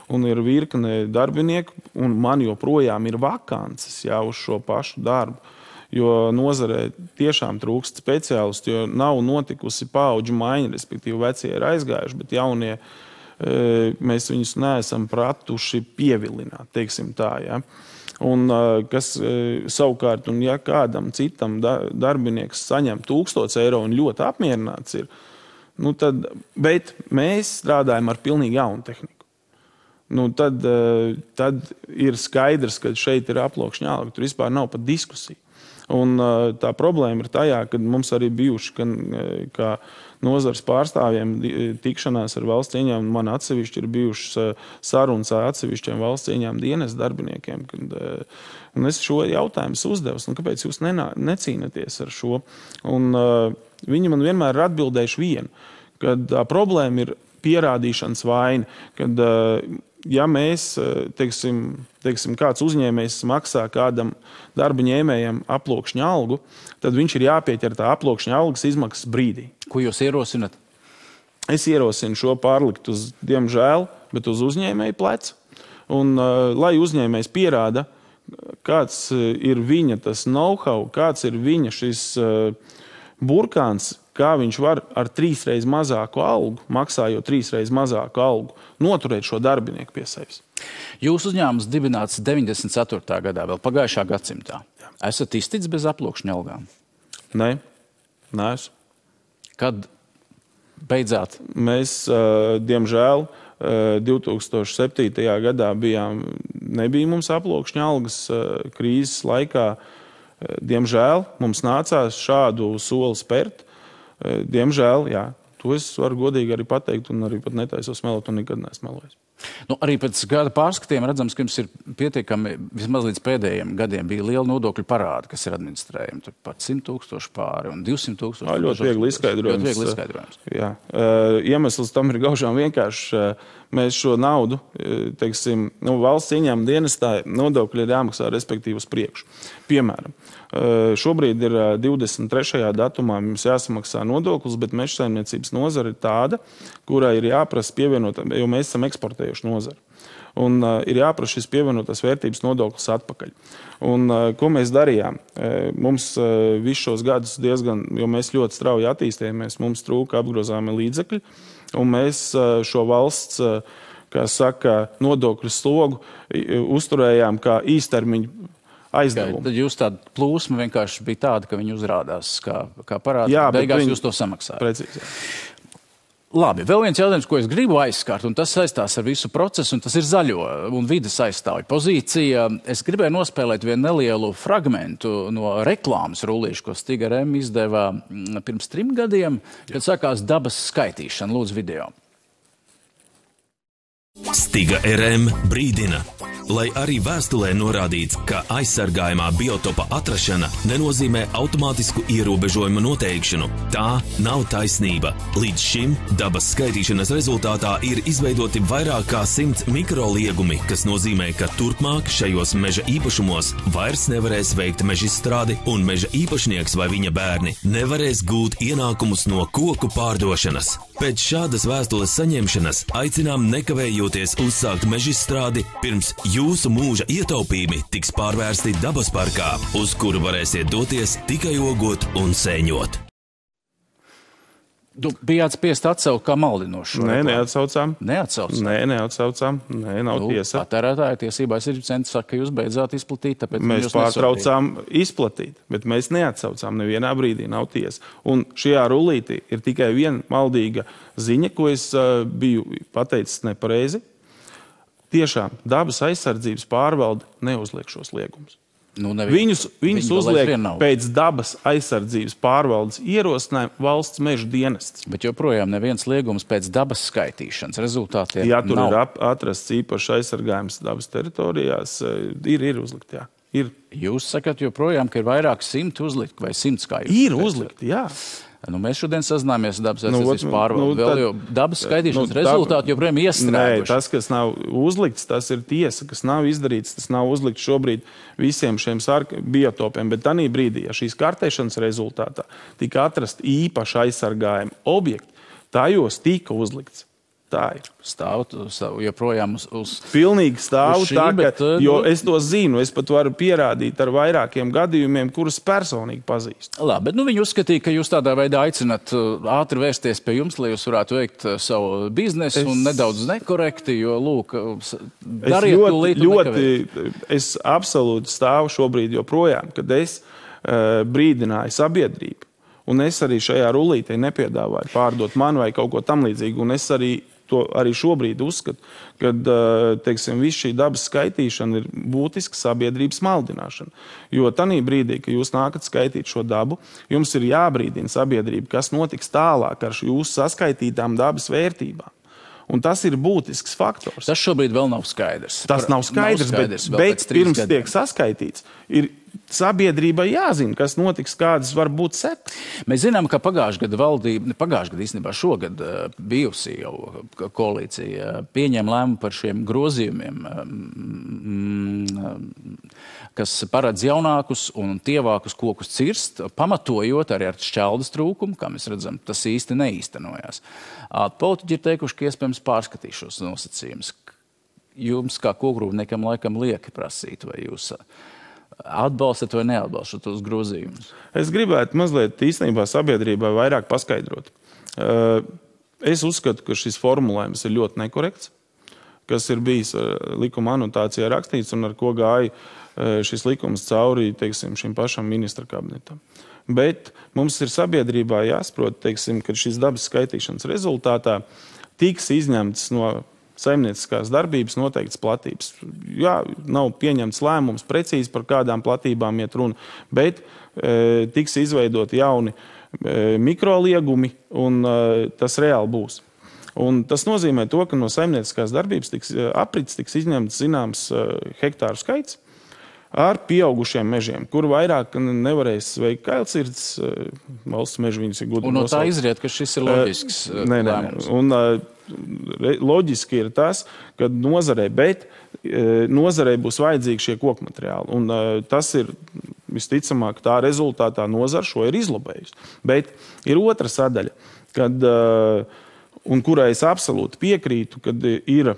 un ir virkne darbinieku, un man joprojām ir vakances uz šo pašu darbu, jo nozarē tiešām trūkst speciālistu, jo nav notikusi paudžu maiņa, respektīvi vecie ir aizgājuši, bet jaunie mēs viņus neesam pratuši pievilināt, teiksim tā, ja. Un kas savukārt, un ja kādam citam darbinieks saņem 1000 eiro un ļoti apmierināts ir, bet mēs strādājam ar pilnīgi jaunu tehniku. Tad ir skaidrs, ka šeit ir aploksņa alga, tur vispār nav pat diskusija. Un tā problēma ir tajā, ka mums arī bijuši, kā nozars pārstāvjiem tikšanās ar valsts ieņēmumu, man atsevišķi ir bijušas sarunas ar atsevišķiem valsts ieņēmumu dienas darbiniekiem. Un es šo jautājumu uzdevu, kāpēc jūs necīnaties ar šo? Un viņi man vienmēr ir atbildējuši vienu, kad problēma ir pierādīšanas vaina, kad ja mēs, teiksim, kāds uzņēmējs maksā kādam darba ņēmējam aploksņa algu, tad viņš ir jāpieķer tā aploksņa algas izmaksas brīdī. Ko jūs ierosinat? Es ierosinu šo pārlikt uz, diemžēl, bet uz uzņēmēju pleca. Un lai uzņēmējs pierāda, kāds ir viņa tas know-how, kāds ir viņa šis burkāns, kā viņš var ar 3 reizes mazāku algu, maksājot 3 reizes mazāku algu, noturēt šo darbinieku pie sevis. Jūsu uzņēmums dibināts 94. gadā, vēl pagājušā gadsimtā. Esat izticis bez aploksņa algām? Nē, neesmu. Kad beidzāt? Mēs, diemžēl, 2007. gadā nebija mums aploksņa algas krīzes laikā. Diemžēl mums nācās šādu soli spērt. Diemžēl, jā, to es varu godīgi arī pateikt un arī pat netaisos melot un nekad neesmu melojis. Arī pēc gada pārskatiem redzams, ka jums ir pietiekami, vismaz līdz pēdējiem gadiem bija liela nodokļu parāda, kas ir administrējumi. Tur pat 100 000 pāri un 200 000. Ļoti viegli izskaidrojums. Jā. Iemesls tam ir gaužām vienkārši. Mēs šo naudu, teiksim, valsts ieņēmuma dienestā nodokļi ir jāmaksā respektīvi uz priekšu. Piemēram, šobrīd ir 23. datumā mums jāsamaksā nodoklis, bet mežsaimniecības nozara ir tāda, kurai ir jāprasa pievienot, jo mēs esam eksportējuši nozari. Un ir jāprasa šis pievienotās vērtības nodoklis atpakaļ. Un ko mēs darījām? Mums visus šos gadus diezgan, jo mēs ļoti strauji attīstījāmies, mums trūka apgrozāmi līdzekļi, un mēs šo valsts, kā saka, nodokļu slogu uzturējām kā īstermiņu aizdevumu. Tad jūs tāda plūsma vienkārši bija tāda, ka viņi uzrādās kā parādi, beigās jūs to samaksājat. Precīzi. Labi, vēl viens jautājums, ko es gribu aizskart, un tas saistās ar visu procesu, un tas ir zaļo un vides aizstāvju pozīcija. Es gribēju nospēlēt vienu nelielu fragmentu no reklāmas rullīšu, ko Stiga RM izdeva pirms 3 gadiem, kad sākās dabas skaitīšana. Lūdzu, video. Stiga RM brīdina. Lai arī vēstulē norādīts, ka aizsargājumā biotopa atrašana nenozīmē automātisku ierobežojumu noteikšanu. Tā nav taisnība. Līdz šim dabas skaitīšanas rezultātā ir izveidoti vairāk kā 100 mikroliegumi, kas nozīmē, ka turpmāk šajos meža īpašumos vairs nevarēs veikt mežizstrādi un meža īpašnieks vai viņa bērni nevarēs gūt ienākumus no koku pārdošanas. Pēc šādas vēstules saņemšanas aicinām nekavējoties uzsākt mežizstrādi, pirms jūsu mūža ietaupījumi tiks pārvērsti dabas parkā, uz kuru varēsiet doties tikai ogot un sēņot. Bijāt spiest atsaukt kā maldinošu? Nē, neatsaucām. Neatsaucām? Nē, neatsaucām. Nē, nav tiesa. Patērētāja tiesībās ir centrs saka, ka jūs beidzāt izplatīt, tāpēc mēs pārtraucām izplatīt, bet mēs neatsaucām. Nevienā brīdī nav tiesa. Un šajā rullītī ir tikai viena maldīga ziņa, ko es biju pateicis nepareizi. Tiešām dabas aizsardzības pārvalde neuzliek šos liegumus. Viņus uzliek pēc dabas aizsardzības pārvaldes ierosinājuma valsts meža dienests. Bet joprojām neviens liegums pēc dabas skaitīšanas rezultātiem jā, tur nav. Ir atrasts īpaši aizsargājums dabas teritorijās. Ir uzlikt, jā. Ir. Jūs sakat joprojām, ka ir vairāk 100 uzlikt vai 100 kā jūs? Ir uzlikt, jā. Mēs šodien sazināmies ar dabas aizsardzības pārvaldi. Vēl jau dabas skaitīšanas rezultāti joprojām iestrēguši. Nē, tas, kas nav uzlikts, tas ir tiesa, kas nav izdarīts. Tas nav uzlikts šobrīd visiem šiem biotopiem. Bet tanī brīdī, ja šīs kartēšanas rezultātā tika atrast īpaši aizsargājumi objekti, tajos tika uzlikts. Tā ir. Stāv joprojām uz pilnīgi stāv šī, tā, bet, jo es to zinu, es pat varu pierādīt ar vairākiem gadījumiem, kurus personīgi pazīstu. Labi, bet viņi uzskatīja, ka jūs tādā veidā aicināt ātri vērsties pie jums, lai jūs varētu veikt savu biznesu un nedaudz nekorekti, jo, lūk, dariet ļoti, es absolūti stāvu šobrīd joprojām, kad es brīdināju sabiedrību, un es arī šajā rullītē nepiedāvāju pārdot manu vai kaut ko tam līdzīgu, un es arī šobrīd uzskatu, ka viss šī dabas skaitīšana ir būtiska sabiedrības maldināšana. Jo tanī brīdī, kad jūs nākat skaitīt šo dabu, jums ir jābrīdina sabiedrība, kas notiks tālāk ar jūsu saskaitītām dabas vērtībām. Un tas ir būtisks faktors. Tas šobrīd vēl nav skaidrs. Tas nav skaidrs, bet pirms tiek saskaitīts, ir sabiedrībai jāzina, kas notiks, kādas var būt sekas. Mēs zinām, ka pagājušajā gadā īstenībā šogad bijusī jau koalīcija pieņēma lēmumu par šiem grozījumiem, kas paredz jaunākus un tievākus kokus cirst, pamatojot arī ar šķeldas trūkumu, kā mēs redzam, tas īsti neīstenojās. Politiķi ir teikuši, ka iespējams pārskatīs šos nosacījumus. Jums kā kokrūpniekam laikam lieki prasīt, vai jūs atbalstat vai neatbalstat tos grozījumus? Es gribētu mazliet īstenībā sabiedrībai vairāk paskaidrot. Es uzskatu, ka šis formulējums ir ļoti nekorekts, kas ir bijis likuma anotācijā rakstīts un ar ko gāja šis likums cauri, šim pašam ministra kabinetam. Bet mums ir sabiedrībā jāsaprot, ka šīs dabas skaitīšanas rezultātā tiks izņemts no saimnieciskās darbības noteikts platības. Jā, nav pieņemts lēmums precīzi par kādām platībām iet runa, bet tiks izveidot jauni mikroliegumi un tas reāli būs. Un tas nozīmē to, ka no saimnieciskās darbības aprits tiks izņemts zināms hektāru skaits ar pieaugušiem mežiem, kur vairāk nevarēs veikt kailcirds, valsts meži viņus ir gudri un no nosaukt. Tā izriet, ka šis ir loģisks lēmums. Un loģiski ir tas, ka nozarei būs vajadzīgi šie kokmateriāli. Un tas ir visticamāk tā rezultātā nozara šo ir izlobējusi. Bet ir otra sadaļa, un kurai es absolūti piekrītu, kad ir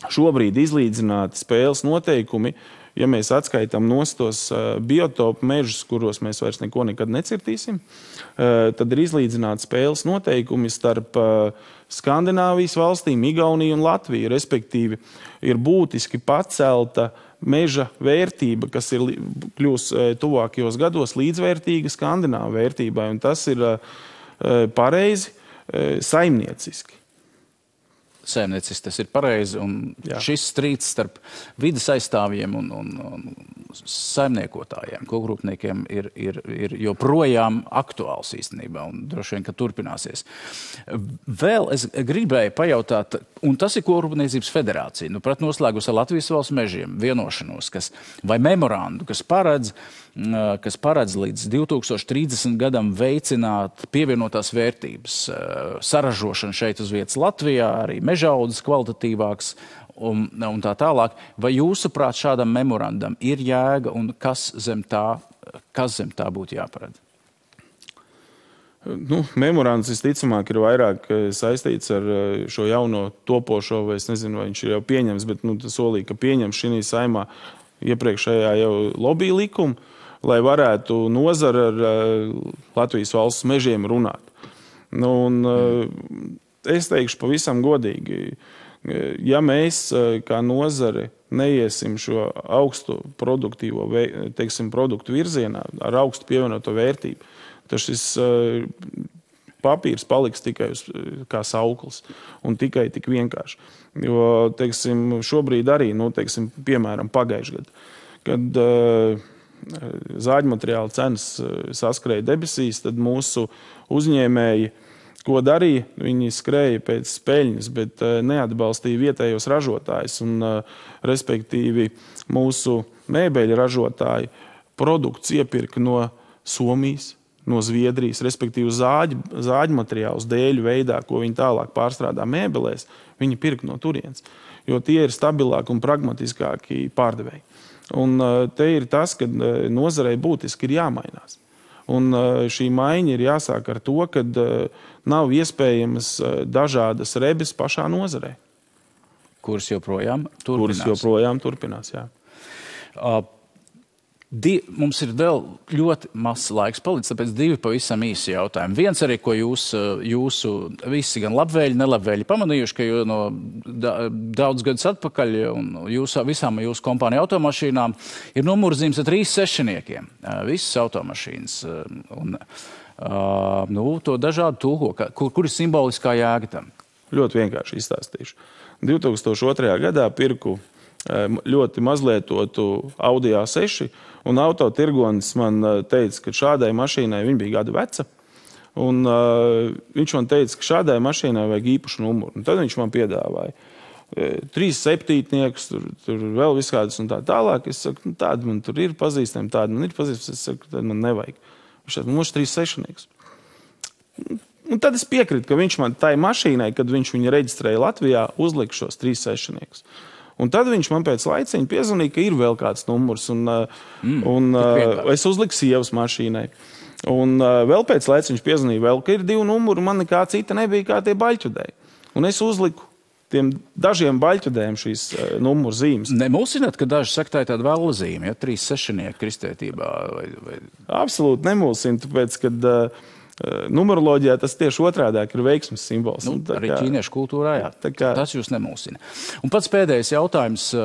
šobrīd izlīdzināti spēles noteikumi, ja mēs atskaitām tos biotopu mežus, kuros mēs vairs neko nekad necirtīsim, tad ir izlīdzināti spēles noteikumi starp Skandināvijas valstīm, Igauniju un Latviju. Respektīvi, ir būtiski pacelta meža vērtība, kas ir kļūs tuvākajos gados līdzvērtīga Skandināvu vērtībai. Un tas ir pareizi saimnieciski. Saimnieciski tas ir pareizi, un šis strīds starp vides aizstāvjiem un saimniekotājiem, kokrūpniekiem ir joprojām aktuāls īstenībā, un droši vien, ka turpināsies. Vēl es gribēju pajautāt, un tas ir Kokrūpniecības federācija, pret noslēgus ar Latvijas valsts mežiem vienošanos, vai memorandu, kas paredz līdz 2030 gadam veicināt pievienotās vērtības saražošanu šeit uz vietas Latvijā, arī mežaudzes kvalitatīvāks un tā tālāk. Vai jūsuprāt šādam memorandam ir jēga un kas zem tā būtu jāparedz? Memorands visticamāk ir vairāk saistīts ar šo jauno topošo, vai es nezinu, vai viņš ir jau pieņems, bet solīja, ka pieņems šī saimā iepriekšējā jau lobby likumu, lai varētu nozara ar Latvijas valsts mežiem runāt. Es teikšu pavisam godīgi, ja mēs kā nozare neiesim šo augstu produktīvo produktu virzienā ar augstu pievienoto vērtību, tad šis papīrs paliks tikai kā sauklis un tikai tik vienkārši. Jo, šobrīd arī, piemēram, pagājušajā gadā, kad zāģmateriāla cenas saskrēja debesīs, tad mūsu uzņēmēji, ko darīja, viņi skrēja pēc peļņas, bet neatbalstīja vietējos ražotājus. Respektīvi, mūsu mēbeļu ražotāji produkts iepirka no Somijas, no Zviedrijas, respektīvi zāģu materiālus dēļu veidā, ko viņi tālāk pārstrādā mēbelēs, viņi pirka no turienes, jo tie ir stabilāki un pragmatiskāki pārdevēji. Un te ir tas, ka nozarei būtiski ir jāmainās. Un šī maiņa ir jāsāk ar to, ka nav iespējamas dažādas rebes pašā nozarē. Kuras joprojām turpinās, jā. Mums ir vēl ļoti mazs laiks palicis, tāpēc 2 pavisam īsi jautājumi. Viens arī, ko jūsu visi gan labvēļi, nelabvēļi pamanījuši, ka no daudz gadus atpakaļ un visām jūsu kompāniju automašīnām ir numurzīmes ar 3 sešniekiem. Visas automašīnas. To dažādu tulko. Kur ir simboliskā jēga tam? Ļoti vienkārši izstāstīšu. 2002. gadā pirku ļoti mazlietotu Audi A6, un autotirgonis man teica, ka šādai mašīnai viņa bija gadu veca, un viņš man teica, ka šādai mašīnai vajag īpašu numuru. Un tad viņš man piedāvāja 3 septītniekus, tur vēl viskādas un tā tālāk. Es saku, tāda man tur ir pazīstama, tāda man ir pazīstama, es saku, tāda man nevajag. Viņš teica, mums 3 sešnieks. Un tad es piekrītu, ka viņš man tai mašīnai, kad viņš viņu reģistrēja Latvijā, uzlika šos 3 sešniekus. Un tad viņš man pēc laiciņa piezvanīja, ka ir vēl kāds numurs, un es uzliku sievas mašīnai. Un vēl pēc laiciņa viņš piezvanīja vēl, ka ir 2 numuri, man nekā cita nebija kā tie baļķudēji. Un es uzliku tiem dažiem baļķudējiem šīs numuru zīmes. Nemulsināt, ka daži saka, tā ir tāda vēla zīme, 3 sešnieki kristietībā? Absolūti nemulsina, tāpēc, kad numeroloģijā tas tieši otrādāk ir veiksmes simbols. Arī ķīniešu kultūrā, jā. Tas jūs nemulsina. Un pats pēdējais jautājums,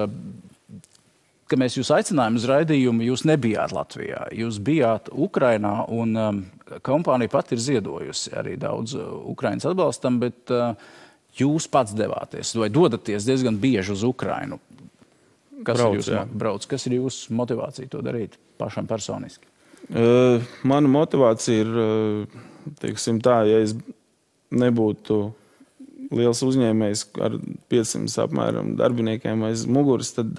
ka mēs jūs aicinājām uz raidījumu, jūs nebijāt Latvijā. Jūs bijāt Ukrainā, un kompānija pat ir ziedojusi arī daudz Ukrainas atbalstam, bet jūs pats devāties vai dodaties diezgan bieži uz Ukrainu. Kas ir jūsu motivācija to darīt pašam personiski? Mana motivācija ir, tā, ja es nebūtu liels uzņēmējs ar 500 apmēram darbiniekiem aiz muguras, tad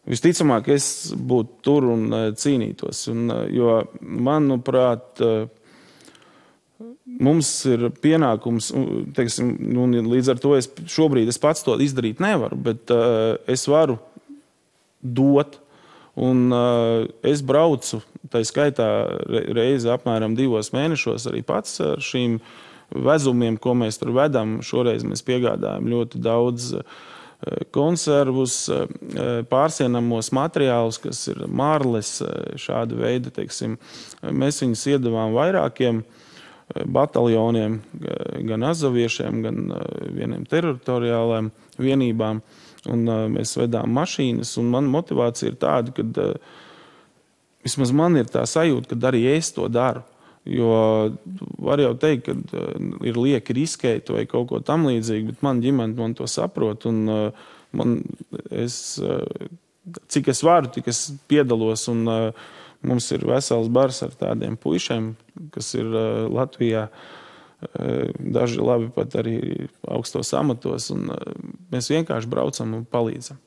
visticamāk es būtu tur un cīnītos. Jo, manuprāt, mums ir pienākums, līdz ar to šobrīd es pats to izdarīt nevaru, bet es varu dot. Un es braucu, tā skaitā reizi apmēram 2 mēnešos arī pats ar šīm vezumiem, ko mēs tur vedam. Šoreiz mēs piegādājam ļoti daudz konservus, pārsienamos materiālus, kas ir marles, šāda veida, mēs viņus iedavām vairākiem bataljoniem, gan azaviešiem, gan vieniem teritoriālajiem vienībām. Un mēs vedām mašīnas, un mana motivācija ir tāda, ka vismaz man ir tā sajūta, ka arī es to daru. Jo var jau teikt, ka ir lieki riskēt vai kaut ko tam līdzīgi, bet man ģimene man to saprot, un cik es varu, tik es piedalos, un mums ir vesels bars ar tādiem puišiem, kas ir Latvijā. Daži labi pat arī augstos amatos, un mēs vienkārši braucam un palīdzam.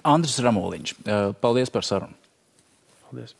Andris Ramoliņš, paldies par sarunu. Paldies.